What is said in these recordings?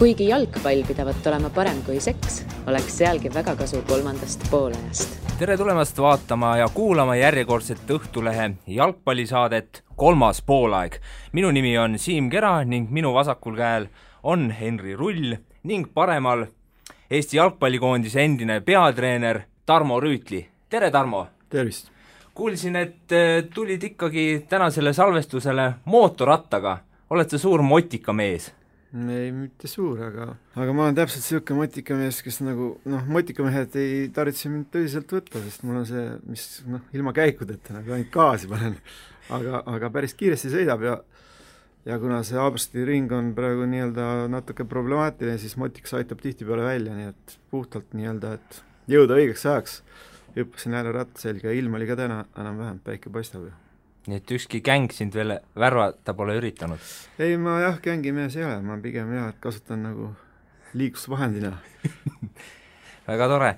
Kuigi jalgpall pidavat olema parem kui seks, oleks sealgi väga kasu kolmandast poolajast. Tere tulemast vaatama ja kuulama järjekordset Õhtulehe jalgpallisaadet Kolmas poolaeg. Minu nimi on Siim Kera ning minu vasakul käel on Henri Rull ning paremal Eesti jalgpallikoondise endine peatreener Tarmo Rüütli. Tere, Tarmo! Tervist! Kuulsin, et tulid ikkagi tänasele salvestusele mootorrattaga. Oled sa suur motikamees? Ei, mitte suur, aga ma olen täpselt selline motikamees, kes nagu, motikamehed ei tarvitse mind tõsiselt võtta, sest mul on see, mis ilma käikudeta, nagu ainult gaasi panen, aga päris kiiresti sõidab ja kuna see Aabrsti ring on praegu natuke problemaatiline, siis motikas aitab tihtipeale välja, nii et puhtalt et jõuda õigeks ajaks hüppasin jälle ratta selga ja ilm oli ka täna enam-vähem, päike paistab. Nii et ükski gäng sind veel värvata pole üritanud? Ei, ma gängimees ei ole, ma pigem et kasutan nagu liiklusvahendina. Väga tore.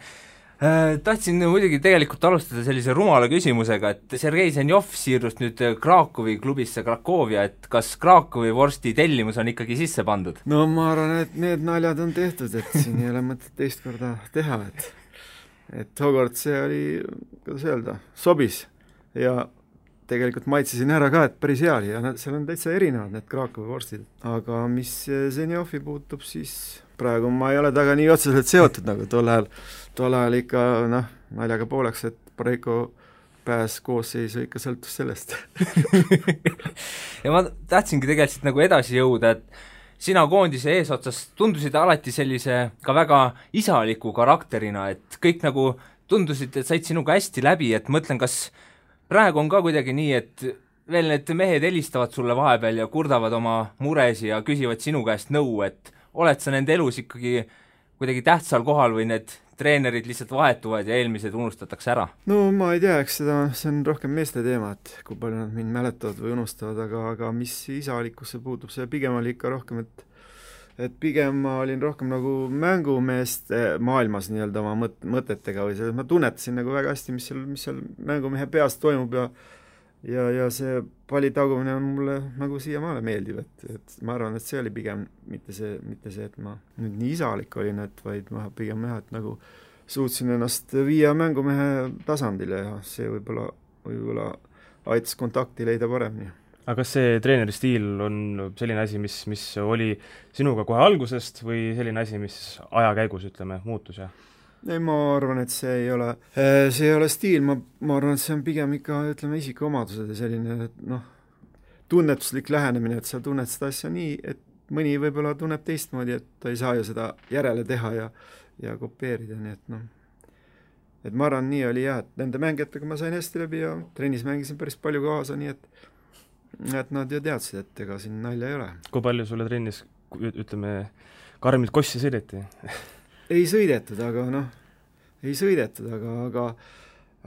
Tahtsin muidugi tegelikult alustada sellise rumala küsimusega, et Sergei Zenjov siirus nüüd Krakowi klubisse Krakovia, et kas Krakowi vorsti tellimus on ikkagi sisse pandud? No ma arvan, et need naljad on tehtud, et siin ei ole mõtet teist korda teha, et tookord see oli, kuidas öelda, sobis ja tegelikult maitsesin ära ka, et päris hea oli ja seal on täitsa erinevad need Krakowi vorstid. Aga mis Zenjovi puutub, siis praegu ma ei ole taga nii otseselt seotud nagu tol ajal ikka naljaga pooleks, et Pareiko pääs koosseisu ikka sõltus sellest. Ja ma tahtsingi tegelikult nagu edasi jõuda, et sina koondise eesotsas tundusid alati sellise ka väga isaliku karakterina, et kõik nagu tundusid, et said sinuga hästi läbi, et mõtlen, kas praegu on ka kuidagi nii, et veel need mehed helistavad sulle vahepeal ja kurdavad oma muresi ja küsivad sinu käest nõu, et oled sa nende elus ikkagi kuidagi tähtsal kohal või need treenerid lihtsalt vahetuvad ja eelmised unustatakse ära? No ma ei tea, eks see on rohkem meeste teema, et kui palju nad mind mäletavad või unustavad, aga mis isalikkusse puutub, see pigem oli ikka rohkem, et pigem ma olin rohkem nagu mängumeeste maailmas oma mõtetega või selles, ma tunnetasin nagu väga hästi, mis seal mängumehe peas toimub ja see palli tagumine on mulle nagu siiamaale meeldib, et ma arvan, et see oli pigem mitte see, et ma nüüd nii isalik olin, vaid ma pigem et nagu suutsin ennast viia mängumehe tasandile ja see võib-olla aitas kontakti leida paremini. Aga kas see treeneri stiil on selline asi, mis oli sinuga kohe algusest või selline asi, mis aja käigus, muutus? Ei, ma arvan, et see ei ole stiil, ma arvan, et see on pigem ikka, isikuomadused ja selline, tunnetuslik lähenemine, et sa tunned seda asja nii, et mõni võib-olla tunneb teistmoodi, et ta ei saa ju seda järele teha ja kopeerida, nii et ma arvan, nii oli et nende mängijatega ma sain hästi läbi ja trennis mängisin päris palju kaasa, nii et nad ju teadsid, et ega siin nalja ei ole. Kui palju sulle trennis, karmilt kossi sõideti? Ei sõidetud,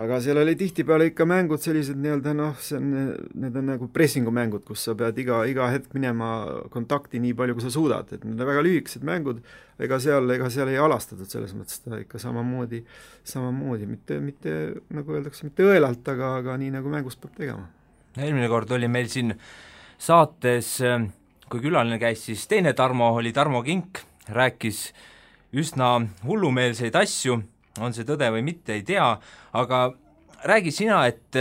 aga seal oli tihtipeale ikka mängud sellised need on nagu pressingumängud, kus sa pead iga hetk minema kontakti nii palju, kui sa suudad, et need on väga lühikesed mängud, ega seal ei alastatud selles mõttes ta ikka samamoodi, mitte nagu öeldakse, mitte õelalt, aga nii nagu mängus peab tegema. Eelmine kord oli meil siin saates, kui külaline käis, siis teine Tarmo oli Tarmo Kink, rääkis üsna hullumeelseid asju, on see tõde või mitte, ei tea, aga räägi sina, et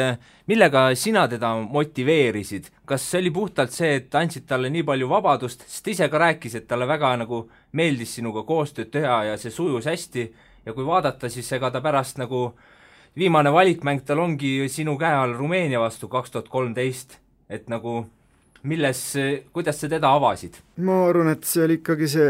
millega sina teda motiveerisid? Kas see oli puhtalt see, et andsid talle nii palju vabadust, sest ise ka rääkis, et talle väga nagu meeldis sinuga koostööd teha ja see sujus hästi ja kui vaadata, siis ega ta pärast nagu viimane valikmäng tal ongi sinu käe all Rumeenia vastu 2013, et nagu kuidas sa teda avasid? Ma arvan, et see oli ikkagi see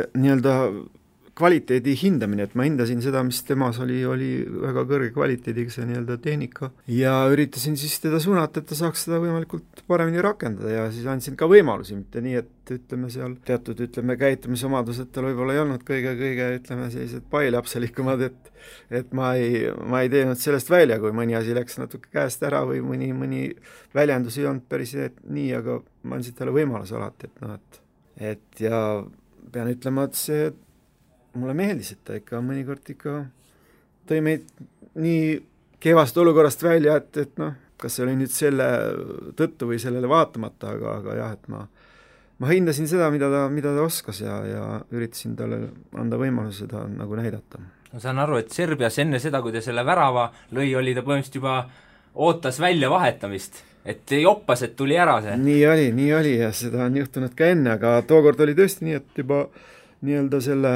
kvaliteedi hindamine, et ma hindasin seda, mis temas oli väga kõrge kvaliteediga see tehnika ja üritasin siis teda suunata, et ta saaks seda võimalikult paremini rakendada ja siis andsin ka võimalusi, mitte nii, et seal teatud käitumisomadused tal võib-olla ei olnud kõige sellised pailapselikumad, et ma ei teinud sellest välja, kui mõni asi läks natuke käest ära või mõni väljendus ei olnud päris nii, aga ma andsin talle võimaluse alati, et ja pean ütlema, et see mulle meeldis, et ta ikka mõnikord tõi meid nii kehvast olukorrast välja, et kas see oli nüüd selle tõttu või sellele vaatamata, aga jah, et ma hindasin seda, mida ta oskas ja üritasin talle anda võimaluse seda nagu näidata. ma saan aru, et Serbias enne seda, kui ta selle värava lõi, oli ta põhimõtteliselt juba ootas välja vahetamist, et joppas, et tuli ära see. Nii oli ja seda on juhtunud ka enne, aga tookord oli tõesti nii, et juba nii-öelda selle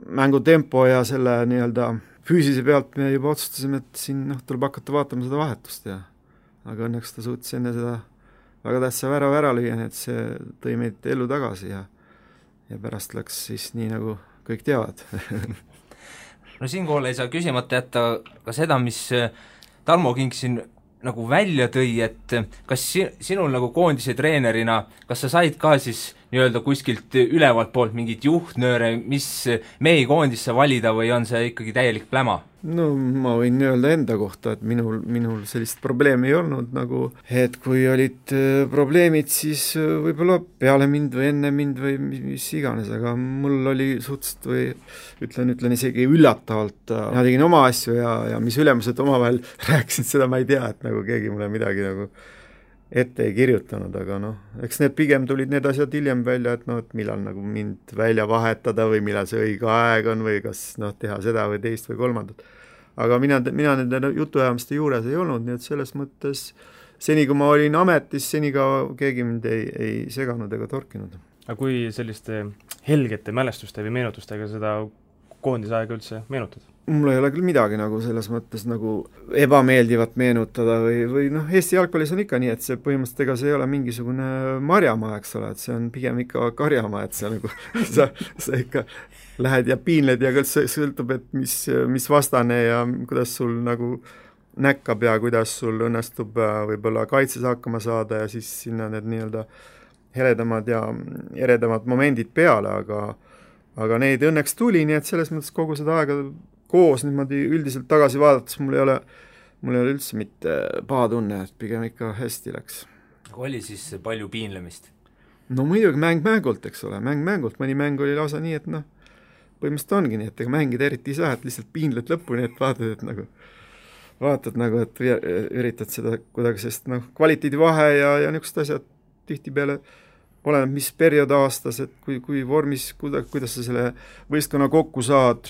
mängutempo ja selle nii-öelda füüsise pealt me juba otsustasime, et siin tuleb hakata vaatama seda vahetust ja aga õnneks ta suutis enne seda väga tähtsa värava ära lüüa, nii et see tõi meid ellu tagasi ja pärast läks siis nii, nagu kõik teavad. No siinkohal ei saa küsimata jätta ka seda, mis Tarmo Kink siin nagu välja tõi, et kas sinul nagu koondise treenerina, kas sa said ka siis nii-öelda kuskilt ülevalt poolt mingit juhtnööre, mis mehi koondisse valida või on see ikkagi täielik pläma? No ma võin öelda enda kohta, et minul sellist probleemi ei olnud nagu, et kui olid probleemid, siis võib-olla peale mind või enne mind või mis iganes, aga mul oli suhteliselt või ütlen isegi üllatavalt, ma tegin oma asju ja mis ülemused omavahel rääkisid, seda ma ei tea, et nagu keegi mulle midagi nagu ette ei kirjutanud, aga eks need pigem tulid need asjad hiljem välja, et et millal nagu mind välja vahetada või millal see õige aeg on või kas teha seda või teist või kolmandat. Aga mina nende jutuajamiste juures ei olnud, nii et selles mõttes seni, kui ma olin ametis, seni ka keegi mind ei seganud ega torkinud. Aga kui selliste helgete mälestuste või meenutustega seda koondisaega üldse meenutad? Mul ei ole küll midagi nagu selles mõttes nagu ebameeldivat meenutada või Eesti jalgpallis on ikka nii, et see põhimõtteliselt ega see ei ole mingisugune marjamaa, eks ole, et see on pigem ikka karjamaa, et see nagu sa ikka lähed ja piinled ja kõik sõltub, et mis vastane ja kuidas sul nagu näkkab ja kuidas sul õnnestub võib-olla kaitses hakkama saada ja siis sinna need nii-öelda heledamad ja eredamad momendid peale, aga neid õnneks tuli, nii et selles mõttes kogu seda aega koos niimoodi üldiselt tagasi vaadates mul ei ole üldse mitte paha tunne, et pigem ikka hästi läks. Oli siis palju piinlemist? No muidugi mängult, eks ole, mängult, mõni mäng oli lausa nii, et põhimõtteliselt ongi nii, et ega mängida eriti ei saa, et lihtsalt piinled lõpuni, et vaatad nagu, et üritad seda kuidagi, sest kvaliteedivahe ja niisugused asjad tihtipeale oleneb, mis periood aastas, et kui vormis, kuidas sa selle võistkonna kokku saad,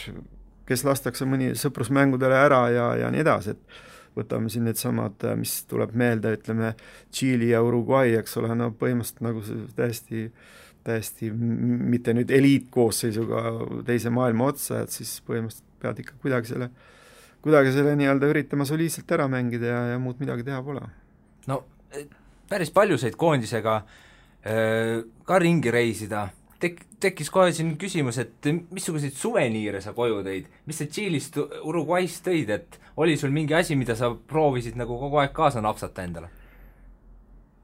kes lastakse mõni sõprusmängudele ära ja nii edasi, et võtame siin need samad, mis tuleb meelde, ütleme, Tšiili ja Uruguay, eks ole, põhimõtteliselt nagu täiesti mitte nüüd eliitkoosseisuga teise maailma otsa, et siis põhimõtteliselt pead ikka kuidagi selle nii-öelda üritama soliidselt ära mängida ja muud midagi teha pole. No päris palju said koondisega ka ringi reisida. Tekkis kohe siin küsimus, et missuguseid suveniire sa koju tõid? Mis sa Tšiilist, Uruguayst tõid, et oli sul mingi asi, mida sa proovisid nagu kogu aeg kaasa napsata endale?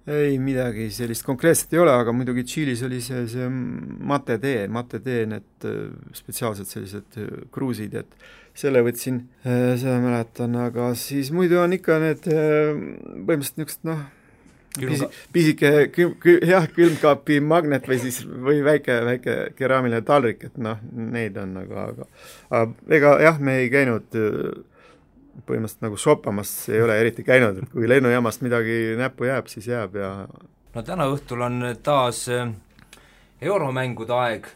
Ei, midagi sellist konkreetselt ei ole, aga muidugi Tšiilis oli see mate tee, need spetsiaalsed sellised kruusid, et selle võtsin, seda mäletan, aga siis muidu on ikka need põhimõtteliselt niisugused pisike külmkaapi magnet või väike keraamiline taldrik, et neid on aga ega jah, me ei käinud põhimõtteliselt nagu shoppamas, ei ole eriti käinud, et kui lennujaamast midagi näppu jääb, siis jääb ja no täna õhtul on taas euromängude aeg,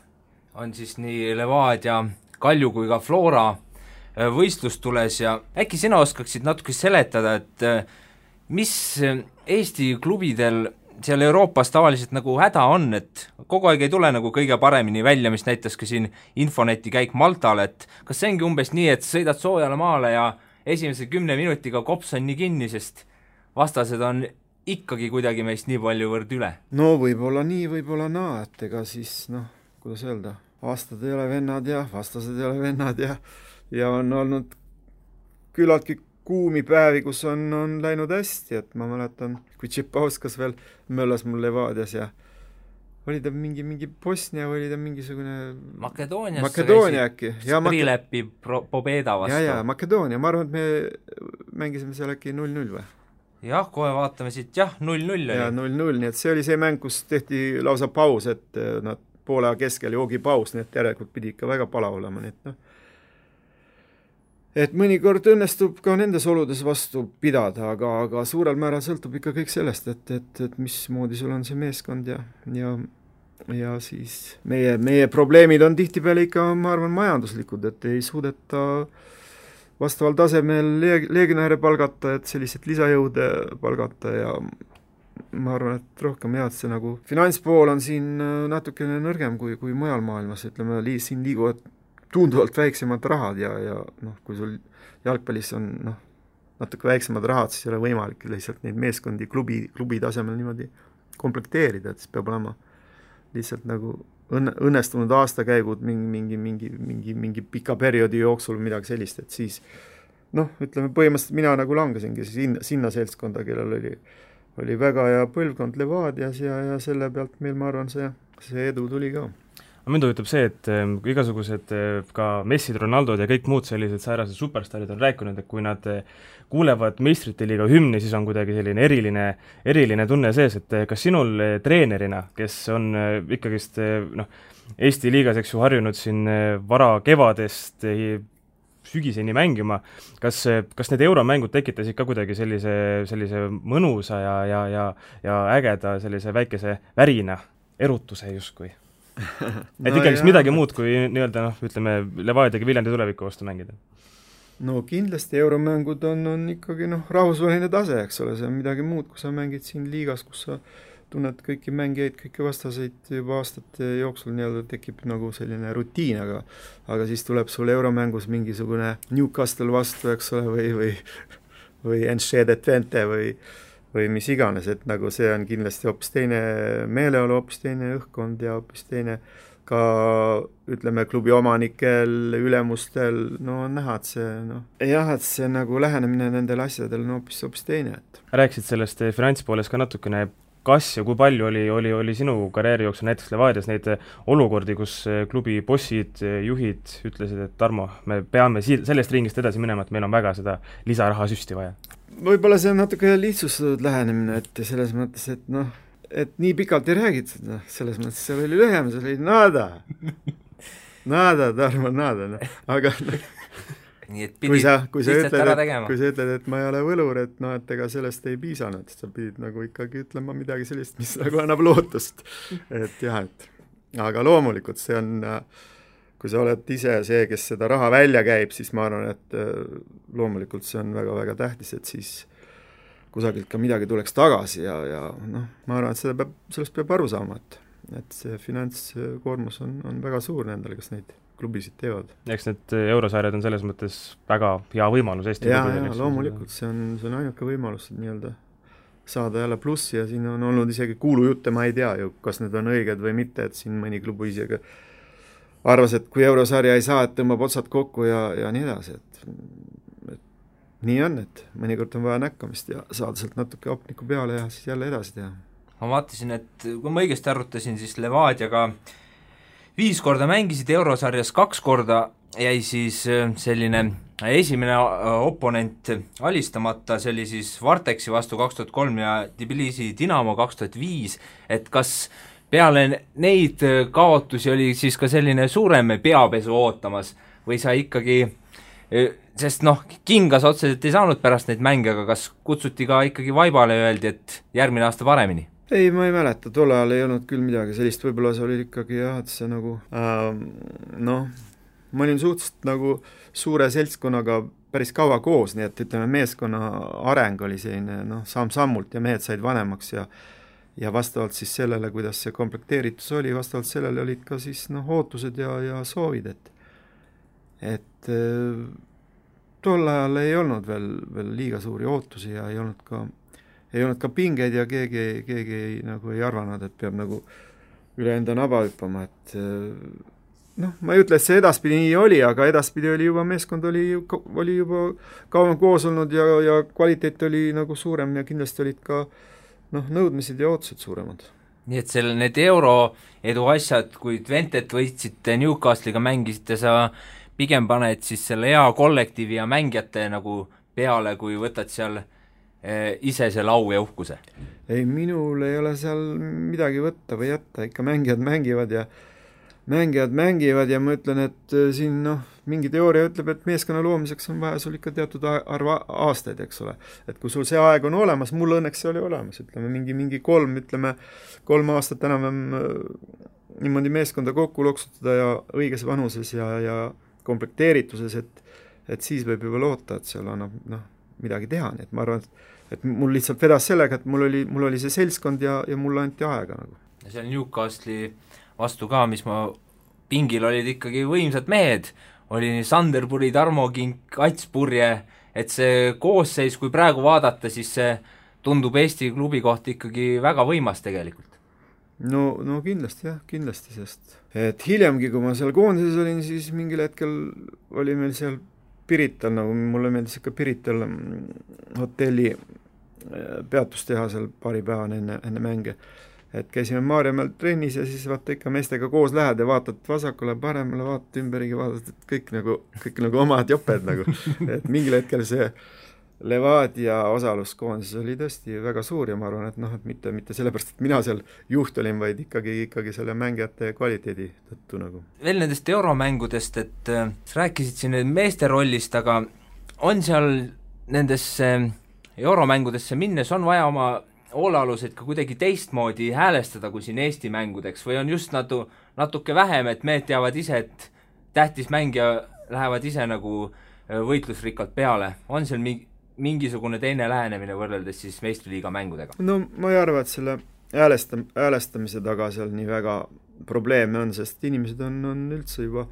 on siis nii Levadia, Kalju kui ka Flora võistlus tules ja äkki sina oskaksid natuke seletada, et mis Eesti klubidel seal Euroopas tavaliselt nagu häda on, et kogu aeg ei tule nagu kõige paremini välja, mis näitas ka siin Infoneti käik Maltal, et kas see ongi umbes nii, et sõidad soojale maale ja esimese 10 minutiga kops on nii kinni, sest vastased on ikkagi kuidagi meist nii palju võrd üle? No võib-olla nii, võib-olla naa, et ega siis kuidas öelda, aastad ei ole vennad ja vastased ei ole vennad ja on olnud küllaltki kuumi päevi, kus on läinud hästi, et ma mäletan, kui Tšipauskas veel möllas mul Levadias ja oli ta mingi Bosnia või oli ta mingisugune Makedoonia äkki. Sprilepi Pobeda vastu. Ja, Makedoonia, ma arvan, et me mängisime seal äkki 0-0 või? Jah, kohe vaatame siit, 0-0 oli. Ja 0-0, nii et see oli see mäng, kus tehti lausa paus, et poole keskel joogipaus, nii et järelikult pidi ikka väga palav olema, nii et et mõnikord õnnestub ka nendes oludes vastu pidada, aga suurel määral sõltub ikka kõik sellest, et mismoodi sul on see meeskond ja ja siis meie probleemid on tihtipeale ikka, ma arvan, majanduslikud, et ei suudeta vastaval tasemel legionäre palgata, et sellised lisajõude palgata ja ma arvan, et rohkem jah, et see nagu finantspool on siin natukene nõrgem kui mujal maailmas, ütleme, siin liiguvad tunduvalt väiksemad rahad ja noh, kui sul jalgpallis on natuke väiksemad rahad, siis ei ole võimalik lihtsalt neid meeskondi klubi tasemel niimoodi komplekteerida, et siis peab olema lihtsalt nagu õnnestunud aastakäigud mingi pika perioodi jooksul midagi sellist, et siis ütleme, põhimõtteliselt mina nagu langesingi sinna seltskonda, kellel oli väga hea põlvkond Levadias ja selle pealt meil, ma arvan, see edu tuli ka. Mind huvitab see, et igasugused ka Messid, Ronaldod ja kõik muud sellised säärased superstarid on rääkinud, et kui nad kuulevad meistrite liiga hümni, siis on kuidagi selline eriline tunne sees, et kas sinul treenerina, kes on ikkagist Eesti liigas, eks ju, harjunud siin vara kevadest sügiseni mängima, kas need euromängud tekitasid ka kuidagi sellise mõnusa ja ägeda sellise väikese värina, erutuse justkui? Et ikkagi midagi muud kui nii-öelda, ütleme, Levadiaga Viljandi tuleviku vastu mängida? No kindlasti euromängud on ikkagi rahvusvaheline tase, eks ole, see on midagi muud, kui sa mängid siin liigas, kus sa tunned kõiki mängijaid, kõiki vastaseid juba aastate jooksul nii-öelda tekib nagu selline rutiin, aga siis tuleb sul euromängus mingisugune Newcastle vastu, eks ole, või Enschede Twente või mis iganes, et nagu see on kindlasti hoopis teine meeleolu, hoopis teine õhkkond ja hoopis teine ka, ütleme, klubi omanikel, ülemustel, on näha, et see nagu lähenemine nendel asjadel on hoopis teine. Rääkisid sellest finantspoolest ka natukene, kas ja kui palju oli sinu karjääri jooksul näiteks Levadias neid olukordi, kus klubi bossid, juhid ütlesid, et Tarmo, me peame sellest ringist edasi minema, et meil on väga seda lisaraha süsti vaja? Võib-olla see on natuke lihtsustatud lähenemine, et selles mõttes, et nii pikalt ei räägitud, selles mõttes seal oli lühem, seal oli nada, Tarmo, nada, aga nii et pidid lihtsalt ära tegema. Kui sa ütled, et ma ei ole võlur, et ega sellest ei piisanud, sa pidid nagu ikkagi ütlema midagi sellist, mis nagu annab lootust. Et jah, aga loomulikult see on, kui sa oled ise see, kes seda raha välja käib, siis ma arvan, et loomulikult see on väga-väga tähtis, et siis kusagilt ka midagi tuleks tagasi ja ma arvan, et sellest peab aru saama, et see finantskoormus on väga suur nendele, kes neid klubisid teevad. Eks need eurosarjad on selles mõttes väga hea võimalus Eesti klubidel. Ja loomulikult, see on ainuke võimalus nii-öelda saada jälle plussi ja siin on olnud isegi kuulujutte, ma ei tea ju, kas need on õiged või mitte, et siin mõni klubi isegi arvas, et kui eurosarja ei saa, et tõmbab otsad kokku ja nii edasi, et nii on, et mõnikord on vaja näkkamist ja saada sealt natuke opniku peale ja siis jälle edasi teha. Ma vaatasin, et kui ma õigesti arvutasin, siis Levadiaga 5 korda mängisid eurosarjas, 2 korda jäi siis selline esimene oponent alistamata, see oli siis Varteksi vastu 2003 ja Tbilisi Dinamo 2005, et kas peale neid kaotusi oli siis ka selline suurem peapesu ootamas või sa ikkagi, sest kingas otseselt ei saanud pärast neid mänge, aga kas kutsuti ka ikkagi vaibale ja öeldi, et järgmine aasta paremini? Ei, ma ei mäleta, tol ajal ei olnud küll midagi sellist, võib-olla see oli ikkagi jah, et see nagu ma olin suhteliselt nagu suure seltskonnaga päris kaua koos, nii et ütleme, meeskonna areng oli selline samm-sammult ja mehed said vanemaks ja vastavalt siis sellele, kuidas see komplekteeritus oli, vastavalt sellele olid ka siis ootused ja soovid, et tol ajal ei olnud veel liiga suuri ootusi ja ei olnud ka pingeid ja keegi nagu ei arvanud, et peab nagu üle enda naba hüppama, et ma ei ütle, et see edaspidi nii oli, aga edaspidi oli juba meeskond oli juba kauem koos olnud ja kvaliteet oli nagu suurem ja kindlasti olid ka nõudmised ja ootused suuremad. Nii et need euro edu asjad, kui Twentet võitsite, Newcastle'iga mängisite, sa pigem paned siis selle hea kollektiivi ja mängijate nagu peale, kui võtad seal ise see lau ja uhkuse? Ei, minul ei ole seal midagi võtta või jätta, ikka mängijad mängivad ja ma ütlen, et siin mingi teooria ütleb, et meeskonna loomiseks on vaja sul ikka teatud arv aastaid, eks ole. Et kui sul see aeg on olemas, mul õnneks see oli olemas, ütleme mingi 3 aastat enam niimoodi meeskonda kokku loksutada ja õiges vanuses ja komplekteerituses, et siis võib juba loota, et seal annab midagi teha, nii et ma arvan, et mul lihtsalt vedas sellega, et mul oli see seltskond ja mulle anti aega nagu. Ja seal Newcastle'i vastu ka, mis ma pingil olid ikkagi võimsad mehed, oli nii Sanderpuri, Tarmo Kink, Ats Purje, et see koosseis, kui praegu vaadata, siis see tundub Eesti klubi kohta ikkagi väga võimas tegelikult. No kindlasti jah, kindlasti, sest et hiljemgi, kui ma seal koondises olin, siis mingil hetkel oli meil seal Pirital, nagu mulle meeldis ikka Pirital hotelli peatustehasel paari päevane enne mänge. Et käisime Maarjamäel trennis ja siis vaata ikka meestega koos lähed ja vaatad vasakule, paremale, vaatad ümberigi, vaatad, et kõik nagu omad joped nagu. Et mingil hetkel see Levadia osaluskoondis oli tõesti väga suur ja ma arvan, et mitte sellepärast, et mina seal juht olin, vaid ikkagi selle mängijate kvaliteedi tõttu nagu. Veel nendest euromängudest, et rääkisid siin meeste rollist, aga on seal nendesse euromängudesse minnes on vaja oma hoolealuseid ka kuidagi teistmoodi häälestada kui siin Eesti mängudeks või on just natuke vähem, et mehed teavad ise, et tähtis mängija lähevad ise nagu võitlusrikkalt peale, on seal mingisugune teine lähenemine võrreldes siis meistriliiga mängudega? No ma ei arva, et selle häälestamise taga seal nii väga probleeme on, sest inimesed on üldse juba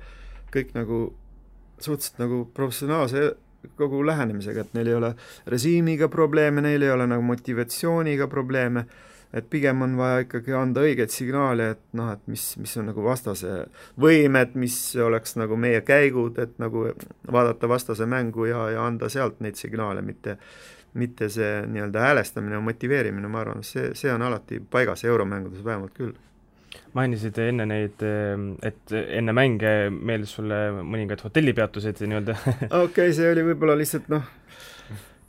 kõik nagu suhteliselt nagu professionaalse kogu lähenemisega, et neil ei ole režiimiga probleeme, neil ei ole nagu motivatsiooniga probleeme, et pigem on vaja ikkagi anda õigeid signaale, et mis on nagu vastase võimed, mis oleks nagu meie käigud, et nagu vaadata vastase mängu ja anda sealt neid signaale, mitte see nii-öelda häälestamine ja motiveerimine, ma arvan, see on alati paigas euromängudes vähemalt küll. Mainisid enne neid, et enne mänge meeldis sulle mõningad hotellipeatused nii-öelda? Okei, see oli võib-olla lihtsalt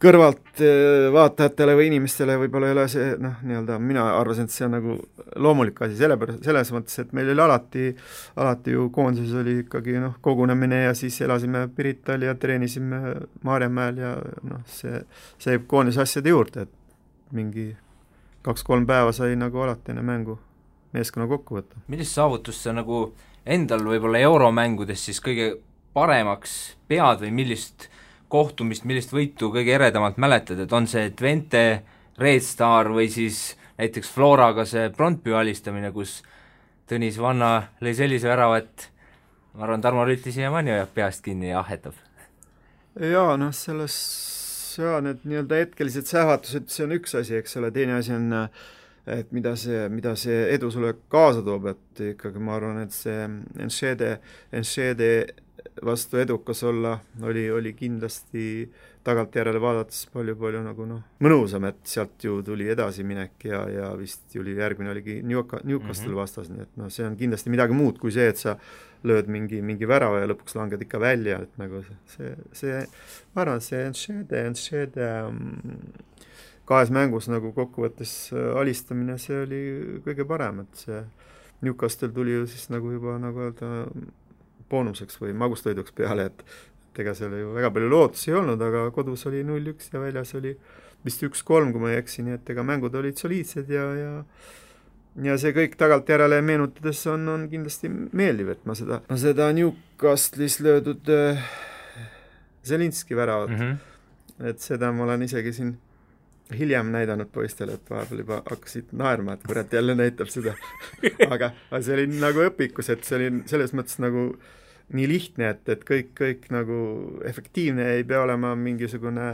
kõrvalt vaatajatele või inimestele võib-olla ei ole see, nii-öelda mina arvasin, et see on nagu loomulik asi, selles mõttes, et meil oli alati ju koondises oli ikkagi kogunemine ja siis elasime Pirital ja treenisime Maarjamäel ja see koondise asjade juurde, et mingi 2-3 päeva sai nagu alati enne mängu meeskonna kokku võtta. Millist saavutust sa nagu endal võib-olla euromängudes siis kõige paremaks pead või millist kohtumist, millist võitu kõige eredamalt mäletad, et on see Twente, Red Star või siis näiteks Floraga see Brondby alistamine, kus Tõnis Vanna lõi sellise värava, et ma arvan, Tarmo Rüütli siiamaani hoiab peast kinni ja ahetab. Jaa, need nii-öelda hetkelised sähvatused, see on üks asi, eks ole, teine asi on et mida see edu sulle kaasa toob, et ikkagi ma arvan, et see Enschede vastu edukas olla oli kindlasti tagantjärele vaadates palju nagu mõnusam, et sealt ju tuli edasiminek ja vist järgmine oligi Newcastle vastas, nii et see on kindlasti midagi muud kui see, et sa lööd mingi värava ja lõpuks langed ikka välja, et nagu see ma arvan, see Enschede kahes mängus nagu kokkuvõttes alistamine, see oli kõige parem, et see Newcastle tuli ju siis nagu juba nagu öelda boonuseks või magustoiduks peale, et ega seal ju väga palju lootusi ei olnud, aga kodus oli 0-1 ja väljas oli vist 1-3, kui ma ei eksi, nii et ega mängud olid soliidsed ja see kõik tagantjärele meenutades on kindlasti meeldiv, et ma seda Newcastle'is löödud Zelinski väravat, et seda ma olen isegi siin hiljem näidanud poistele, et vahepeal juba hakkasid naerma, et kurat jälle näitab seda. aga see oli nagu õpikus, et see oli selles mõttes nagu nii lihtne, et kõik nagu efektiivne ei pea olema mingisugune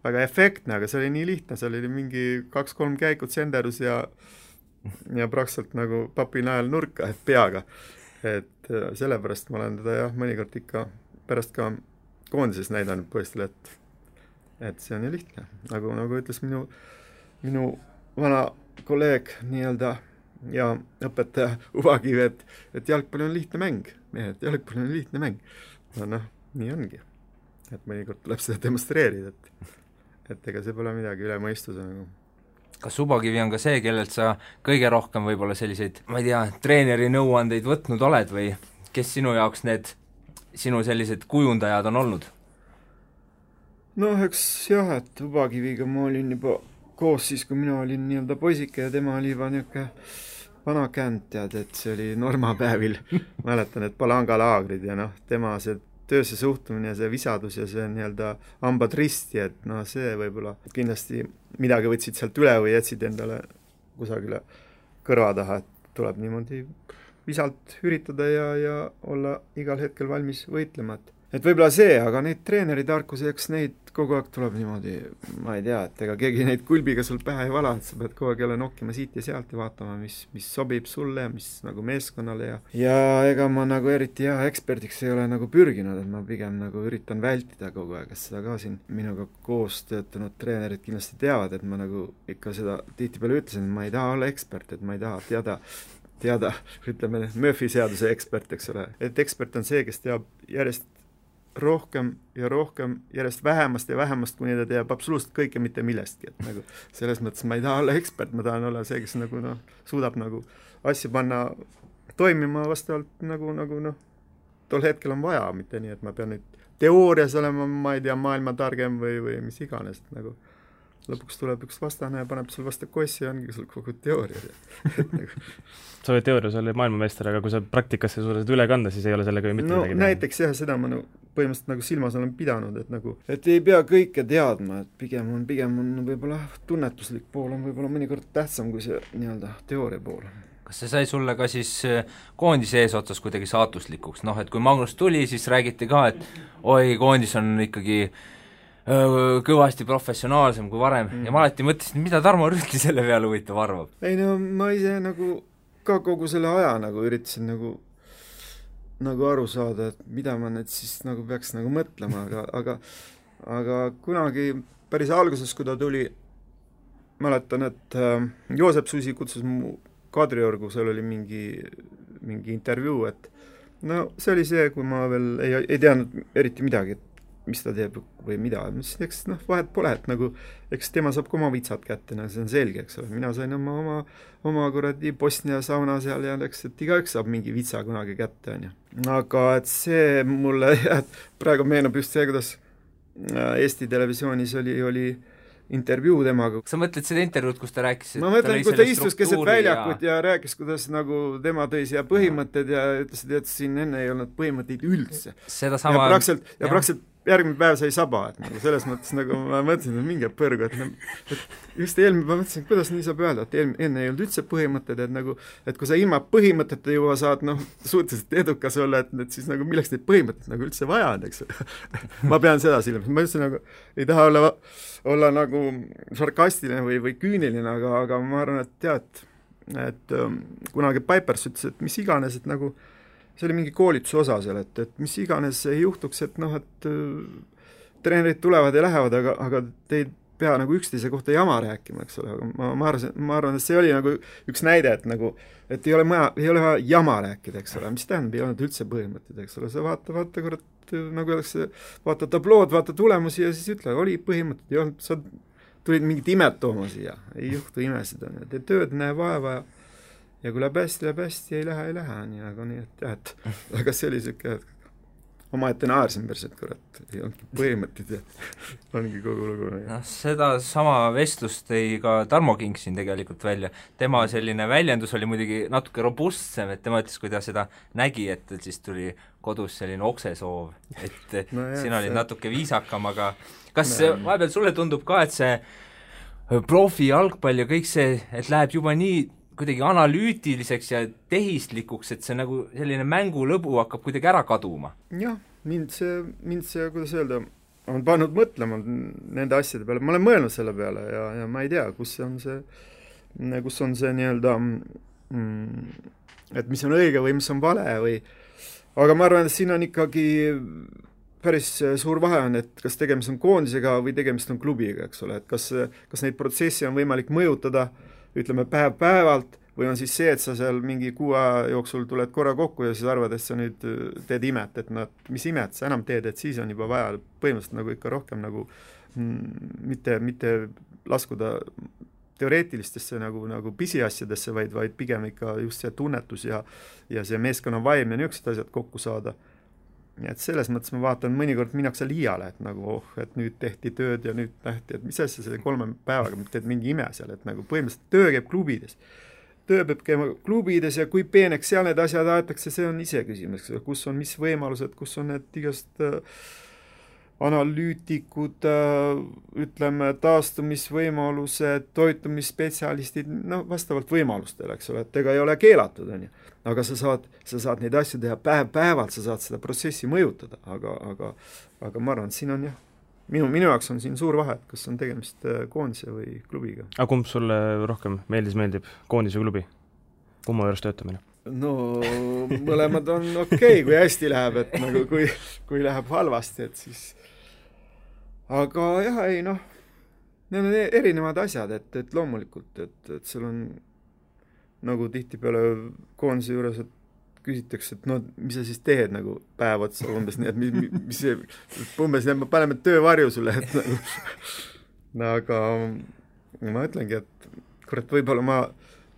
väga efektne, aga see oli nii lihtne, see oli mingi 2-3 käikud senderus ja praktiliselt nagu papi najal nurka, et peaga. Et sellepärast ma olen teda mõnikord ikka pärast ka koondises näidanud poistele, et see on ju lihtne. Nagu ütles minu vana kolleeg nii-öelda ja õpetaja Uvakiv, et jalgpall on lihtne mäng. Jalgpall on lihtne mäng. Nii ongi. Et mõnikord tuleb seda demonstreerida, et ega see pole midagi üle mõistuse nagu. Kas Uvakivi on ka see, kellelt sa kõige rohkem võib-olla selliseid, ma ei tea, treeneri nõuandeid võtnud oled või kes sinu jaoks need sinu sellised kujundajad on olnud? noh, eks jah, et Ubakiviga ma olin juba koos siis, kui mina olin nii-öelda poisike ja tema oli juba niisugune vana känd, tead, et see oli normapäevil mäletan, et palangalaagrid ja noh, tema see töösse suhtumine ja see visadus ja see nii-öelda hambad risti, et noh, see võib-olla kindlasti midagi võtsid sealt üle või jätsid endale kusagile kõrva taha, et tuleb niimoodi visalt üritada ja olla igal hetkel valmis võitlema, et võib-olla see, aga neid treeneritarkusi, eks neid kogu aeg tuleb niimoodi, ma ei tea, et ega keegi neid kulbiga sul pähe ei vala, et sa pead kogu aeg jälle nokkima siit ja sealt ja vaatama, mis sobib sulle, mis nagu meeskonnale ja ega ma nagu eriti hea eksperdiks ei ole nagu pürginud, et ma pigem nagu üritan vältida kogu aeg, et seda ka siin minuga koos töötanud treenerid kindlasti teavad, et ma nagu ikka seda tihtipeale ütlesin, et ma ei taha olla ekspert, et ma ei taha teada, ütleme, Murphy seaduse ekspert, eks ole, et ekspert on see, kes teab järjest rohkem ja rohkem, järjest vähemast ja vähemast, kuni ta teab absoluutselt kõike mitte millestki, et nagu selles mõttes ma ei taha olla ekspert, ma tahan olla see, kes nagu noh, suudab nagu asju panna toimima vastavalt nagu noh, tol hetkel on vaja, mitte nii, et ma pean nüüd teoorias olema, ma ei tea, maailma targem või mis iganes, nagu lõpuks tuleb üks vastane ja paneb sul vastu kossi ja ongi sul kogu teooria. Sa oled teoorias oli maailmameister, aga kui sa praktikasse suudad üle kanda, siis ei ole sellega ju mitte midagi teha. Näiteks jah, seda ma põhimõtteliselt nagu silmas olen pidanud, et ei pea kõike teadma, et pigem on võib-olla tunnetuslik pool on võib-olla mõnikord tähtsam kui see nii-öelda teooria pool. Kas see sai sulle ka siis koondise eesotsas kuidagi saatuslikuks? Noh, et kui Magnus tuli, siis räägiti ka, et oi, koondis on ikkagi kõvasti professionaalsem kui varem ja ma alati mõtlesin, mida Tarmo Rüütli selle peale huvitav arvab? Ei no ma ise nagu ka kogu selle aja nagu üritasin nagu aru saada, et mida ma nüüd siis nagu peaks nagu mõtlema, aga kunagi päris alguses, kui ta tuli, mäletan, et Joosep Susi kutsus mu Kadriorgu, seal oli mingi intervjuu, et no see oli see, kui ma veel ei teadnud eriti midagi, et mis ta teeb või mida, eks noh, vahet pole, et nagu eks tema saab ka oma vitsad kätte, see on selge, eks ole, mina sain oma kuradi Bosnia sauna seal ja eks, et igaüks saab mingi vitsa kunagi kätte, on ju. Aga et see mulle praegu meenub just see, kuidas Eesti Televisioonis oli intervjuu temaga. Sa mõtled seda intervjuud, kus ta rääkis? Ma mõtlen, kui ta istus keset väljakut ja rääkis, kuidas nagu tema tõi siia põhimõtted ja ütles, et siin enne ei olnud põhimõtteid üldse. Seda sama... Ja praktiliselt järgmine päev sai saba, et nagu selles mõttes nagu ma mõtlesin, et mingi põrgu, et just eelmine ma mõtlesin, kuidas nii saab öelda, et enne ei olnud üldse põhimõtted, et nagu, et kui sa ilma põhimõtete juba saad suhteliselt edukas olla, et siis nagu milleks neid põhimõtteid nagu üldse vaja on, eks ma pean seda silmas, ma üldse nagu ei taha olla nagu sarkastiline või küüniline, aga ma arvan, et tead, et kunagi Pipers ütles, et mis iganes, et nagu see oli mingi koolituse osa seal, et mis iganes ei juhtuks, et noh, et treenerid tulevad ja lähevad, aga te ei pea nagu üksteise kohta jama rääkima, eks ole, aga ma arvan, et see oli nagu üks näide, et nagu, et ei ole vaja jama rääkida, eks ole, mis tähendab, ei olnud üldse põhimõtted, eks ole, sa vaata, kurat, nagu öeldakse, vaata tablood, vaata tulemusi ja siis ütle, oli põhimõtted, ei olnud, sa tulid mingit imet tooma siia, ei juhtu imesid, tee tööd, näe vaeva ja kui läheb hästi, ei lähe, nii nagu nii, et jah, et aga see oli siuke, omaette naersin päris, et kurat, ei olnudki põhimõtted ja ongi kogu lugu. Noh, seda sama vestlust tõi ka Tarmo King siin tegelikult välja. Tema selline väljendus oli muidugi natuke robustsem, et tema ütles, kui ta seda nägi, et siis tuli kodus selline oksesoov, et no jah, sina olid natuke viisakam, aga kas vahepeal sulle tundub ka, et see profi jalgpall ja kõik see, et läheb juba nii kuidagi analüütiliseks ja tehislikuks, et see nagu selline mängulõbu hakkab kuidagi ära kaduma? Jah, mind see, kuidas öelda, on pannud mõtlema nende asjade peale, ma olen mõelnud selle peale ja ma ei tea, kus on see nii-öelda, et mis on õige või mis on vale või, aga ma arvan, et siin on ikkagi päris suur vahe on, et kas tegemist on koondisega või tegemist on klubiga, eks ole, et kas neid protsessi on võimalik mõjutada ütleme päev-päevalt või on siis see, et sa seal mingi 6 aja jooksul tuled korra kokku ja siis arvad, et sa nüüd teed imet, et mis imet sa enam teed, et siis on juba vaja põhimõtteliselt nagu ikka rohkem nagu mitte laskuda teoreetilistesse nagu pisiasjadesse, vaid pigem ikka just see tunnetus ja see meeskonna vaim ja niisugused asjad kokku saada. nii et selles mõttes ma vaatan, mõnikord minnakse liiale, et nagu et nüüd tehti tööd ja nüüd nähti, et mis asja selle 3 päevaga teed mingi ime seal, et nagu põhimõtteliselt töö käib klubides. Töö peab käima klubides ja kui peeneks seal need asjad aetakse, see on ise küsimus, kus on mis võimalused, kus on need igast analüütikud, ütleme, taastumisvõimalused, toitumisspetsialistid, no vastavalt võimalustele, eks ole, et ega ei ole keelatud, on ju. Aga sa saad neid asju teha päevalt, sa saad seda protsessi mõjutada, aga ma arvan, et siin on jah, minu jaoks on siin suur vahe, kas on tegemist koondise või klubiga. Aga kumb sulle rohkem meeldib, koondise või klubi? Kumma juures töötamine? No mõlemad on okei, kui hästi läheb, et nagu kui läheb halvasti, et siis aga jah, ei noh, need on erinevad asjad, et loomulikult, et seal on nagu tihtipeale koondise juures, et küsitakse, et no mis sa siis teed nagu päev otsa umbes, nii et mis see, umbes nii, et me paneme töövarju sulle, et nagu aga ma ütlengi, et kurat, võib-olla ma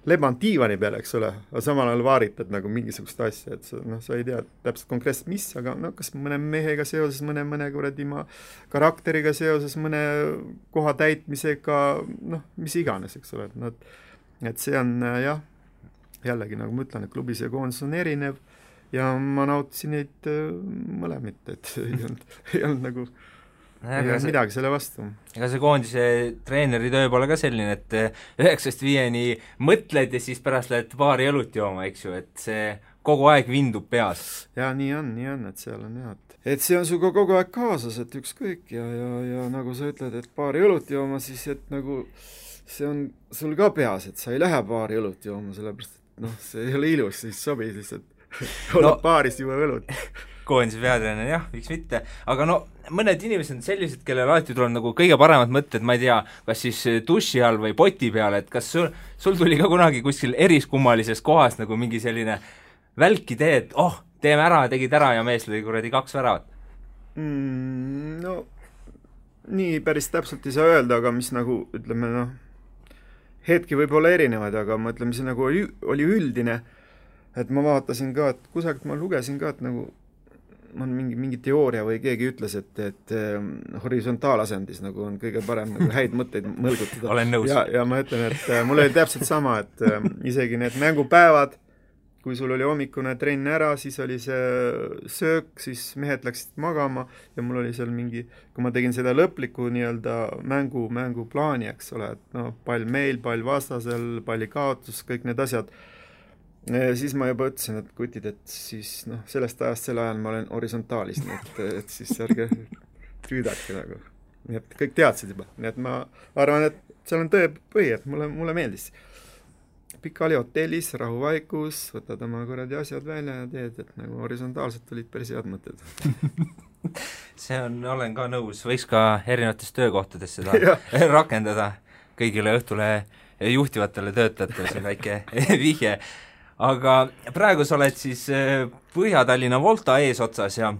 leban diivani peale, eks ole, aga samal ajal vaaritad nagu mingisugust asja, et sa ei tea täpselt konkreetselt mis, aga no kas mõne mehega seoses, mõne kuradi karakteriga seoses, mõne koha täitmisega, noh, mis iganes, eks ole, et see on jah, jällegi nagu ma ütlen, et klubis ja koondis on erinev ja ma nautisin neid mõlemit, et ei olnud nagu ei ole midagi selle vastu. Ega see koondise treeneri töö pole ka selline, et 9-5 mõtled ja siis pärast lähed baari õlut jooma, eks ju, et see kogu aeg vindub peas. Ja nii on, et seal on jah, et see on suga kogu aeg kaasas, et ükskõik ja nagu sa ütled, et baari õlut jooma, siis et nagu see on sul ka peas, et sa ei lähe baari õlut jooma, sellepärast et noh, see ei ole ilus, siis sobi lihtsalt olla baaris juua õlut. Koondise peatreener, jah, miks mitte, aga no mõned inimesed on sellised, kellel alati tuleb nagu kõige paremad mõtted, ma ei tea, kas siis duši all või poti peal, et kas sul tuli ka kunagi kuskil eriskummalises kohas nagu mingi selline välk idee, et teeme ära, tegid ära ja mees lõi kuradi 2 väravat? No nii päris täpselt ei saa öelda, aga mis nagu, ütleme noh, hetki võib olla erinevaid, aga ma ütleme, see nagu oli üldine, et ma vaatasin ka, et kusagilt ma lugesin ka, et nagu on mingi teooria või keegi ütles, et horisontaalasendis nagu on kõige parem nagu häid mõtteid mõlgutada. Olen nõus. Ja ma ütlen, et mul oli täpselt sama, et isegi need mängupäevad, kui sul oli hommikune trenn ära, siis oli see söök, siis mehed läksid magama ja mul oli seal mingi, kui ma tegin seda lõplikku nii-öelda mänguplaani, eks ole, et no pall meil, pall vastasel, palli kaotus, kõik need asjad, siis ma juba ütlesin, et kutid, et siis noh, sellest ajast selle ajal ma olen horisontaalis, nii et siis ärge püüdake nagu. Nii et kõik teadsid juba. Nii et ma arvan, et seal on tõe põhi, et mulle meeldis. Pikali hotellis, rahuvaikus, võtad oma kuradi asjad välja ja teed, et nagu horisontaalselt olid päris head mõtted. See olen ka nõus, võiks ka erinevates töökohtades seda rakendada kõigile Õhtule juhtivatele töötajatele, see väike vihje. Aga praegu sa oled siis Põhja-Tallinna Volta eesotsas ja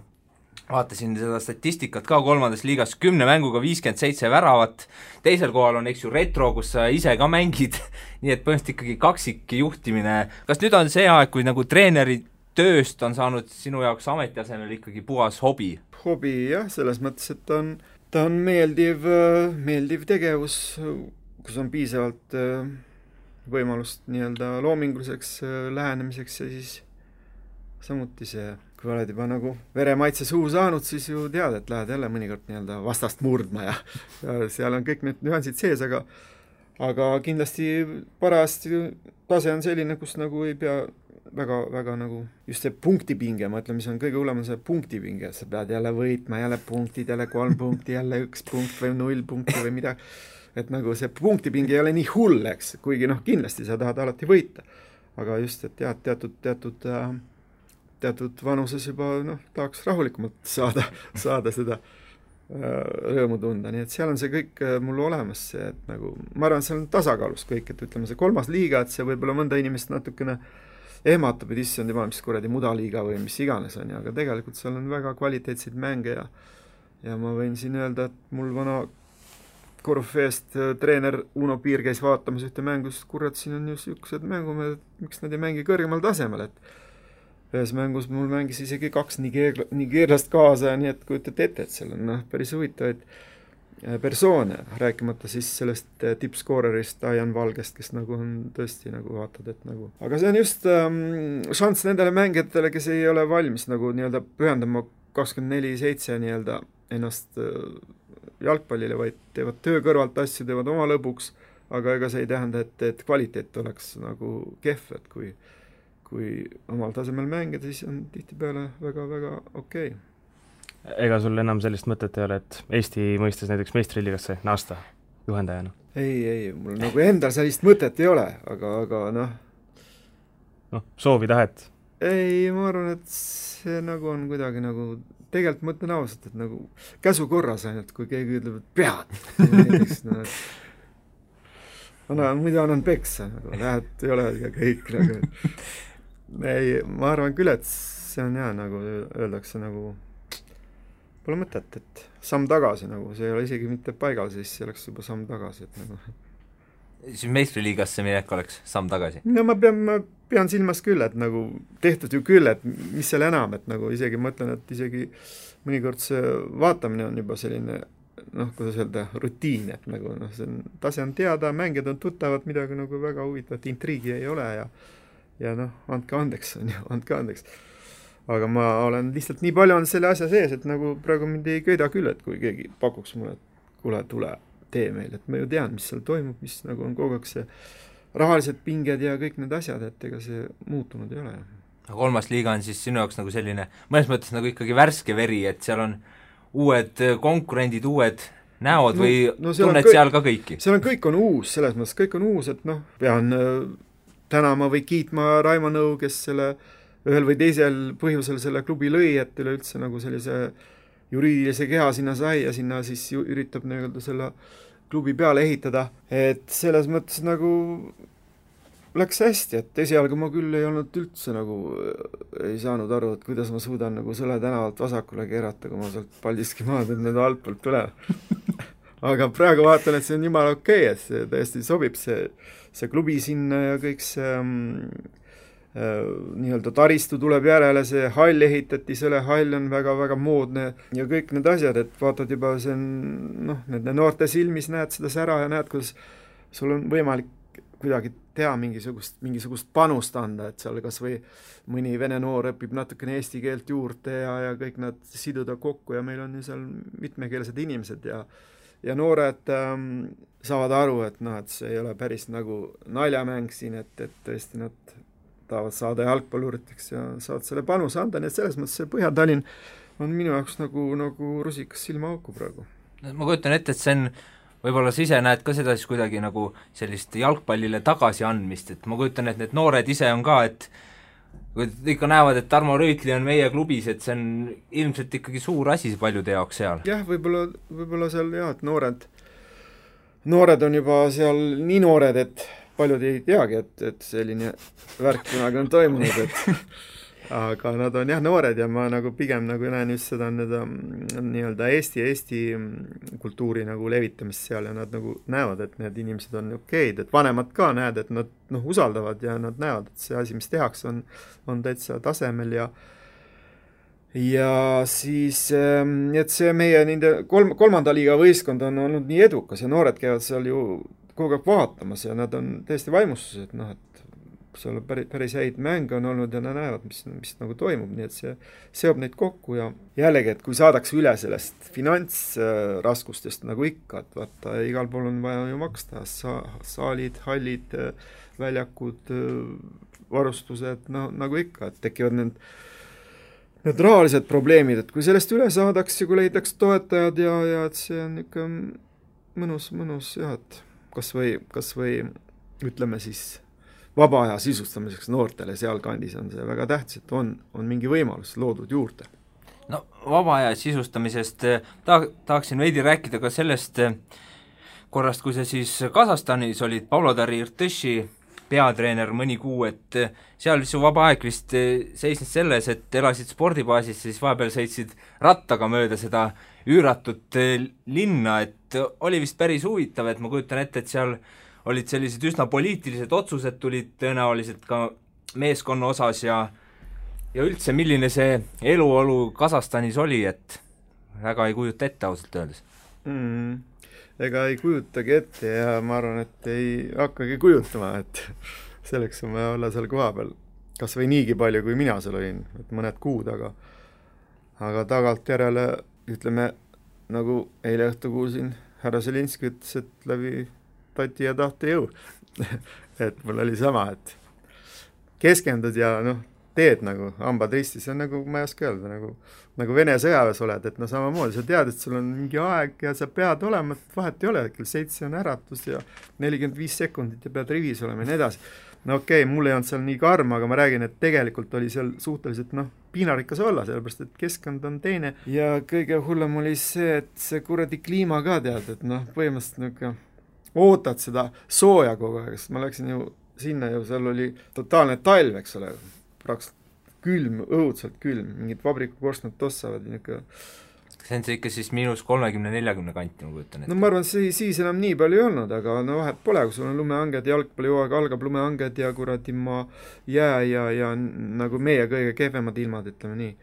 vaatasin seda statistikat ka 3. liigas 10 mänguga 57 väravat, teisel kohal on eks ju Retro, kus sa ise ka mängid, nii et põhimõtteliselt ikkagi kaksik juhtimine. Kas nüüd on see aeg, kui nagu treeneri tööst on saanud sinu jaoks ametiasemel ikkagi puhas hobi? Hobi jah, selles mõttes, et ta on meeldiv tegevus, kus on piisavalt võimalust nii-öelda loominguliseks lähenemiseks ja siis samuti see, kui oled juba nagu veremaitse suu saanud, siis ju tead, et lähed jälle mõnikord nii-öelda vastast murdma ja seal on kõik need nüansid sees, aga kindlasti parajasti tase on selline, kus nagu ei pea väga nagu just see punktipinge, ma ütlen, mis on kõige hullem, on see punktipinge, sa pead jälle võitma, jälle punktid, jälle 3 punkti, jälle 1 punkt või 0 punkti või midagi. Et nagu see punktipingi ei ole nii hull, eks, kuigi noh, kindlasti sa tahad alati võita. Aga just, et jah, teatud vanuses juba noh, tahaks rahulikumalt saada seda rõõmu tunda, nii et seal on see kõik mul olemas, see, et nagu, ma arvan, seal on tasakaalus kõik, et ütleme see 3. liiga, et see võib-olla mõnda inimest natukene ehmatab, et issand juba, mis kuradi mudaliiga või mis iganes on, aga tegelikult seal on väga kvaliteetseid mänge ja ma võin siin öelda, et mul vana Korufeest treener Uno Piir käis vaatamas ühte mängust, kurat, siin on just üksused mängumehed, miks nad ei mängi kõrgemal tasemel, ühes mängus mul mängis isegi 2 nigeerlast kaasa ja nii, et kujutate ette, et seal on päris huvitavaid persoone, rääkimata siis sellest tippskoorerist Ian Valgest, kes nagu on tõesti nagu vaatad, et nagu aga see on just šanss nendele mängijatele, kes ei ole valmis nagu nii-öelda pühendama 24/7 nii-öelda ennast jalgpallile, vaid teevad töö kõrvalt asju, teevad oma lõbuks, aga ega see ei tähenda, et kvaliteet oleks nagu kehv, et kui omal tasemel mängida, siis on tihtipeale väga-väga okei. Ega sul enam sellist mõtet ei ole, et Eesti mõistes näiteks meistriliigasse naasta juhendajana? Ei, mul nagu endal sellist mõtet ei ole, aga noh, soovi tahet? Ei, ma arvan, et see nagu on kuidagi nagu, tegelikult mõtlen ausalt, et nagu käsu korras ainult, kui keegi ütleb, et pead näiteks, muidu annan peksa, nagu lähed, ei ole ja kõik nagu. Ei, ma arvan küll, et see on hea, nagu öeldakse nagu pole mõtet, et samm tagasi nagu, see ei ole isegi mitte paigal, siis see oleks juba samm tagasi, et nagu siis meistriliigasse minek oleks samm tagasi? No ma pean silmas küll, et nagu tehtud ju küll, et mis seal enam, et nagu isegi mõtlen, et isegi mõnikord see vaatamine on juba selline kuidas öelda, rutiin, et nagu tase on teada, mängijad on tuttavad, midagi nagu väga huvitavat, intriigi ei ole ja andke andeks, andke andeks. Aga ma olen lihtsalt nii palju on selle asja sees, et nagu praegu mind ei köida küll, et kui keegi pakuks mulle, et kuule, tule tee meil, et ma ju tean, mis seal toimub, mis nagu on kogu aeg see rahalised pinged ja kõik need asjad, et ega see muutunud ei ole. Kolmas liiga on siis sinu jaoks nagu selline, mõnes mõttes nagu ikkagi värske veri, et seal on uued konkurendid, uued näod või tunned seal ka kõiki? Seal on kõik on uus, selles mõttes kõik on uus, et pean tänama või kiitma Raimo Nõu, kes selle ühel või teisel põhjusel selle klubi lõi, et üleüldse nagu sellise juriidilise keha sinna sai ja sinna siis üritab nii-öelda selle klubi peale ehitada, et selles mõttes nagu läks hästi, et esialgu ma küll ei olnud üldse nagu, ei saanud aru, et kuidas ma suudan nagu Sõle tänavalt vasakule keerata, kui ma sealt Paldiski maad nüüd altpoolt tuleb. Aga praegu vaatan, et see on jumala okei, et see täiesti sobib see klubi sinna ja kõik see nii-öelda taristu tuleb järele, see hall ehitati, selle hall on väga-väga moodne ja kõik need asjad, et vaatad juba see on, nende noorte silmis näed seda sära ja näed, kuidas sul on võimalik kuidagi teha mingisugust panust anda, et seal kas või mõni vene noor õpib natukene eesti keelt juurde ja kõik nad siduda kokku ja meil on ju seal mitmekeelsed inimesed ja noored saavad aru, et et see ei ole päris nagu naljamäng siin, et tõesti nad tahavad saada jalgpalluriteks ja saavad selle panuse anda, nii et selles mõttes see Põhja-Tallinn on minu jaoks nagu rusikas silmaauku praegu. Ma kujutan ette, et see on, võib-olla sa ise näed ka seda siis kuidagi nagu sellist jalgpallile tagasi andmist, et ma kujutan, et need noored ise on ka, et kui ikka näevad, et Tarmo Rüütli on meie klubis, et see on ilmselt ikkagi suur asi paljude jaoks seal. Jah, võib-olla seal et noored on juba seal nii noored, et paljud ei teagi, et selline värk kunagi on toimunud, aga nad on noored ja ma nagu pigem nagu näen just seda nii-öelda Eesti kultuuri nagu levitamist seal ja nad nagu näevad, et need inimesed on okeid, et vanemad ka näed, et nad usaldavad ja nad näevad, et see asi, mis tehakse, on täitsa tasemel ja siis, et see meie nende kolmanda liiga võistkond on olnud nii edukas ja noored käivad seal ju kogu aeg vaatamas ja nad on täiesti vaimustuses, et et seal päris häid mänge on olnud ja nad näevad, mis nagu toimub, nii et see seob neid kokku ja jällegi, et kui saadakse üle sellest finantsraskustest nagu ikka, et vaata, igal pool on vaja ju maksta, saalid, hallid, väljakud, varustused, nagu ikka, et tekivad need rahalised probleemid, et kui sellest üle saadaks ja kui leidaks toetajad ja et see on ikka mõnus jah, et kas või ütleme siis vaba aja sisustamiseks noortele sealkandis on see väga tähtis, et on mingi võimalus loodud juurde. No vaba aja sisustamisest tahaksin veidi rääkida ka sellest korrast, kui sa siis Kasahstanis olid Pavlodar Irtõši peatreener mõni kuu, et seal su vaba aeg vist seisnes selles, et elasid spordibaasis, siis vahepeal sõitsid rattaga mööda seda üüratut linna, et oli vist päris huvitav, et ma kujutan ette, et seal olid sellised üsna poliitilised otsused tulid tõenäoliselt ka meeskonna osas ja ja üldse, milline see eluolu Kasahstanis oli, et väga ei kujuta ette ausalt öeldes? Ega ei kujutagi ette ja ma arvan, et ei hakkagi kujutama, et selleks on vaja olla seal koha peal kas või niigi palju, kui mina seal olin, et mõned kuud, aga tagantjärele, ütleme, nagu eile õhtu kuulsin, härra Zelinski ütles, et läbi tati ja tahte jõu. Et mul oli sama, et keskendud ja teed nagu hambad ristis, see on nagu, ma ei oska öelda, nagu Vene sõjaväes oled, et samamoodi, sa tead, et sul on mingi aeg ja sa pead olema, et vahet ei ole, kell 7 on äratus ja 45 sekundit ja pead rivis olema ja nii edasi. Okei, mul ei olnud seal nii karm, aga ma räägin, et tegelikult oli seal suhteliselt piinarikas olla, sellepärast, et keskkond on teine ja kõige hullem oli see, et see kuradi kliima ka tead, et põhimõtteliselt ootad seda sooja kogu aeg, sest ma läksin ju sinna ju, seal oli totaalne talv, eks ole, praktiliselt külm, õudselt külm, mingid vabrikukorstnad tossavad ja niisugune. See on see ikka siis -30–40 kanti, ma kujutan ette. No ma arvan, siis enam nii palju ei olnud, aga vahet pole, kui sul on lumehanged, jalgpallihooaeg algab lumehanged ja kuradi jää ja nagu meie kõige kehvemad ilmad, ütleme nii.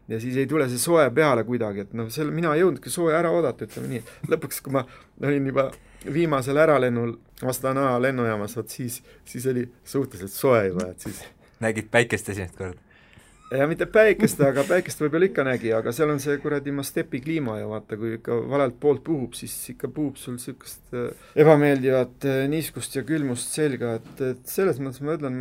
Ja siis ei tule see soe peale kuidagi, et mina ei jõudnudki sooja ära oodata, ütleme nii. Lõpuks, kui ma olin juba viimasel äralennul Astana lennujaamas, siis oli suhteliselt soe juba, et siis nägid päikest esimest korda? Ja mitte päikest, aga päikest võib-olla ikka nägi, aga seal on see kuradi stepi kliima ja vaata, kui ikka valelt poolt puhub, siis ikka puhub sul sellist ebameeldivat niiskust ja külmust selga, et selles mõttes ma ütlen,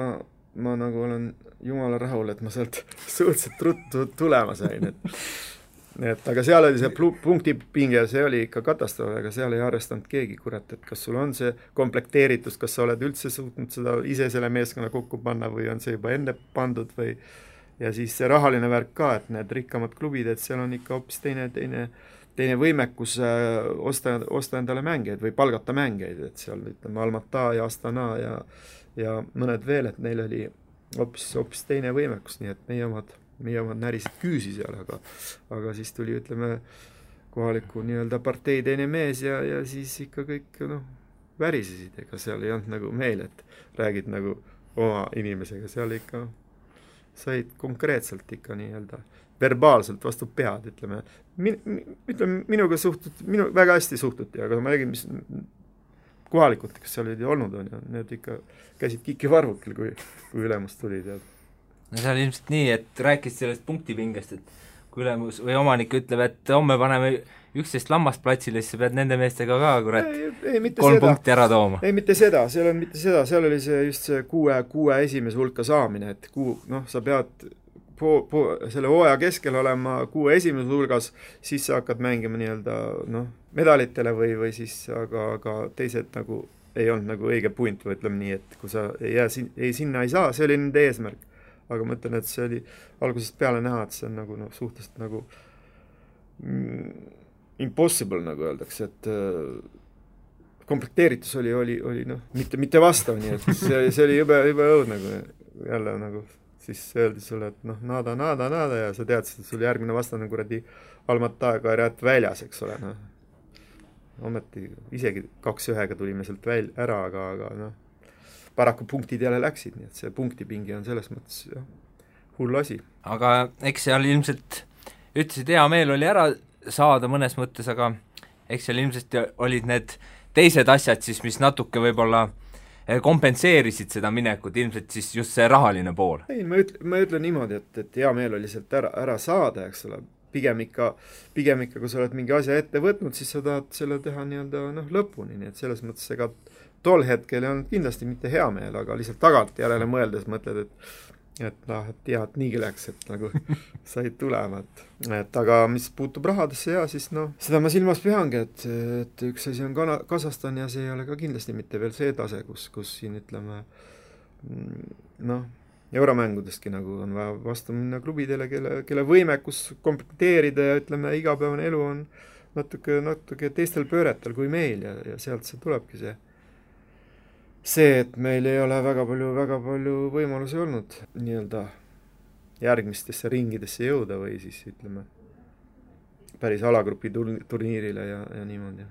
ma nagu olen jumala rahul, et ma sealt suhteliselt ruttu tulema sain, et aga seal oli see punktipinge, see oli ikka katastroof, aga seal ei arvestanud keegi, kurat, et kas sul on see komplekteeritus, kas sa oled üldse suutnud seda ise selle meeskonna kokku panna või on see juba enne pandud või ja siis see rahaline värk ka, et need rikkamad klubid, et seal on ikka hoopis teine võimekus osta endale mängeid või palgata mängeid, et seal ütleme Almata ja Astana ja mõned veel, et neil oli hoopis teine võimekus, nii et meie omad närisid küüsi seal, aga siis tuli, ütleme, kohaliku nii-öelda partei teine mees ja siis ikka kõik värisesid, ega seal ei olnud nagu meil, et räägid nagu oma inimesega, seal ikka said konkreetselt ikka nii-öelda verbaalselt vastu pead, ütleme. Minuga väga hästi suhtuti, aga ma räägin, mis kohalikud, kes seal olid olnud on ja need ikka käisid kikivarvukil, kui ülemus tuli tead. No see oli ilmselt nii, et rääkis sellest punktipingest, et kui ülemus või omanik ütleb, et homme paneme 11 lammast platsile, siis sa pead nende meestega ka, kurat, 3 punkti ära tooma. Ei, mitte seda, seal oli see just see kuue esimese hulka saamine, et sa pead selle hooaja keskel olema 6 esimese hulgas, siis sa hakkad mängima nii-öelda medalitele või siis aga teised nagu ei olnud nagu õige punt või ütleme nii, et kui sa sinna ei saa, see oli nende eesmärk. Aga ma ütlen, et see oli algusest peale näha, et see on nagu suhteliselt nagu impossible, nagu öeldakse, et komplekteeritus oli mitte vastav, nii et see oli jube õud nagu jälle nagu siis öeldi sulle, et nada ja sa teadsid, et sul järgmine vastane kuradi Almata Kairat väljas, eks ole, ometi isegi 2-1 tulime sealt ära, aga paraku punktid jälle läksid, nii et see punktipingi on selles mõttes hull asi. Aga eks seal ilmselt ütlesid, hea meel oli ära saada mõnes mõttes, aga eks seal ilmselt olid need teised asjad siis, mis natuke võib-olla kompenseerisid seda minekut, ilmselt siis just see rahaline pool. Ei, ma ütlen niimoodi, et hea meel oli sealt ära saada, eks ole, pigem ikka, kui sa oled mingi asja ette võtnud, siis sa tahad selle teha nii-öelda lõpuni, nii et selles mõttes ega tol hetkel ei olnud kindlasti mitte hea meel, aga lihtsalt tagant järele mõeldes mõtled, et niigi läks, et nagu said tulema, et aga mis puutub rahadesse ja siis seda ma silmas peangi, et üks asi on Kasahstan ja see ei ole ka kindlasti mitte veel see tase, kus siin ütleme euromängudestki nagu on vaja vastu minna klubidele, kelle võimekus komplekteerida ja ütleme, igapäevane elu on natuke teistel pööretel kui meil ja sealt see tulebki see, et meil ei ole väga palju võimalusi olnud nii-öelda järgmistesse ringidesse jõuda või siis ütleme päris alagrupi turniirile ja niimoodi.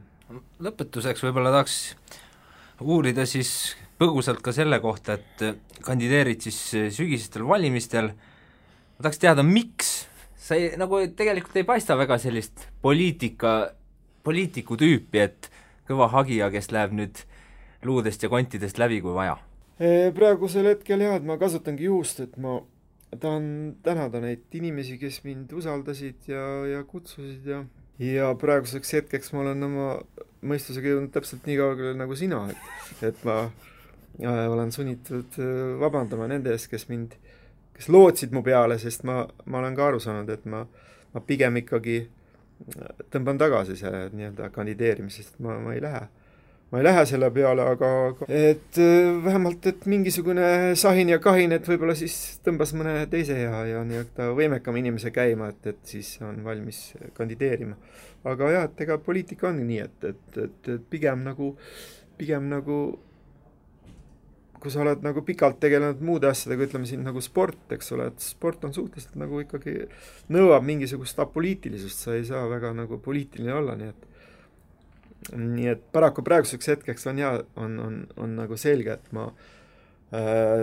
Lõpetuseks võib-olla tahaks uurida siis põgusalt ka selle kohta, et kandideerid siis sügisestel valimistel, ma tahaks teada, miks sa nagu tegelikult ei paista väga sellist poliitiku tüüpi, et kõva hagija, kes läheb nüüd luudest ja kontidest läbi, kui vaja? Praegusel hetkel jah, et ma kasutangi juhust, et ma tahan tänada neid inimesi, kes mind usaldasid ja kutsusid ja praeguseks hetkeks ma olen oma mõistusega jõudnud täpselt nii kaugele nagu sina, et ma olen sunnitud vabandama nende ees, kes lootsid mu peale, sest ma olen ka aru saanud, et ma pigem ikkagi tõmban tagasi selle nii-öelda kandideerimisest, ma ei lähe selle peale, aga et vähemalt, et mingisugune sahin ja kahin, et võib-olla siis tõmbas mõne teise ja nii-öelda võimekam inimese käima, et siis on valmis kandideerima. Aga jah, et ega poliitika on nii, et pigem nagu kui sa oled nagu pikalt tegelenud muude asjadega, ütleme siin nagu sport, eks ole, et sport on suhteliselt nagu ikkagi nõuab mingisugust apoliitilisust, sa ei saa väga nagu poliitiline olla, nii et paraku praeguseks hetkeks on nagu selge, et ma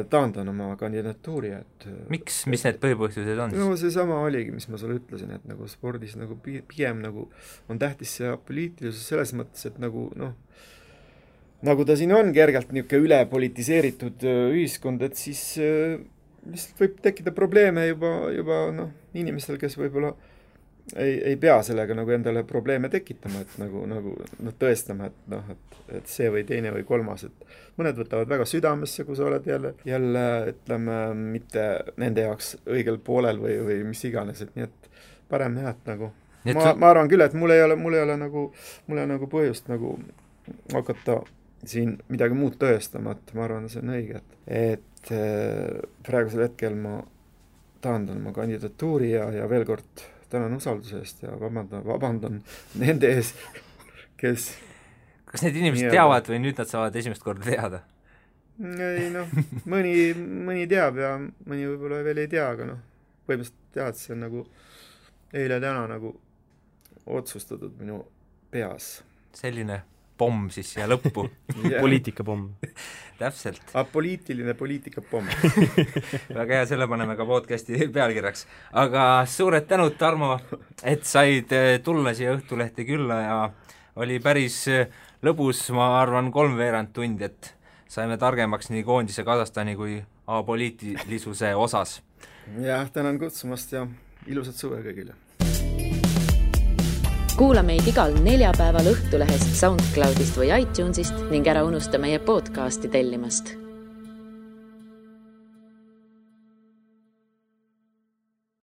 taandan oma kandidatuuri, et miks, mis need põhipõhjused on? No see sama oligi, mis ma sulle ütlesin, et nagu spordis nagu pigem nagu on tähtis see apoliitilisus selles mõttes, et nagu ta siin on kergelt niisugune ülepolitiseeritud ühiskond, et siis lihtsalt võib tekkida probleeme juba inimestel, kes võib-olla ei pea sellega nagu endale probleeme tekitama, et nagu tõestama, et see või teine või kolmas, et mõned võtavad väga südamesse, kui sa oled jälle ütleme, mitte nende jaoks õigel poolel või mis iganes, et nii et parem jah, et nagu ma arvan küll, et mul ei ole nagu põhjust nagu hakata siin midagi muud tõestama, et ma arvan, see on õige, et praegusel hetkel ma taandan oma kandidatuuri ja veel kord tänan usalduse eest ja vabandan nende ees, kes kas need inimesed teavad või nüüd nad saavad esimest korda teada? Ei mõni teab ja mõni võib-olla veel ei tea, aga põhimõtteliselt tead, see on nagu eile-täna nagu otsustatud minu peas. Selline pomm siis siia lõppu. Poliitikapomm. Täpselt. Apoliitiline poliitikapomm. Väga hea, selle paneme ka podcasti pealkirjaks. Aga suured tänud, Tarmo, et said tulla siia Õhtulehte külla ja oli päris lõbus, ma arvan, 3/4 tundi, et saime targemaks nii koondise Kasahstani kui apoliitilisuse osas. Jah, tänan kutsumast ja ilusat suve kõigile. Kuula meid igal neljapäeval Õhtulehest, SoundCloudist või iTunesist ning ära unusta meie podcasti tellimast.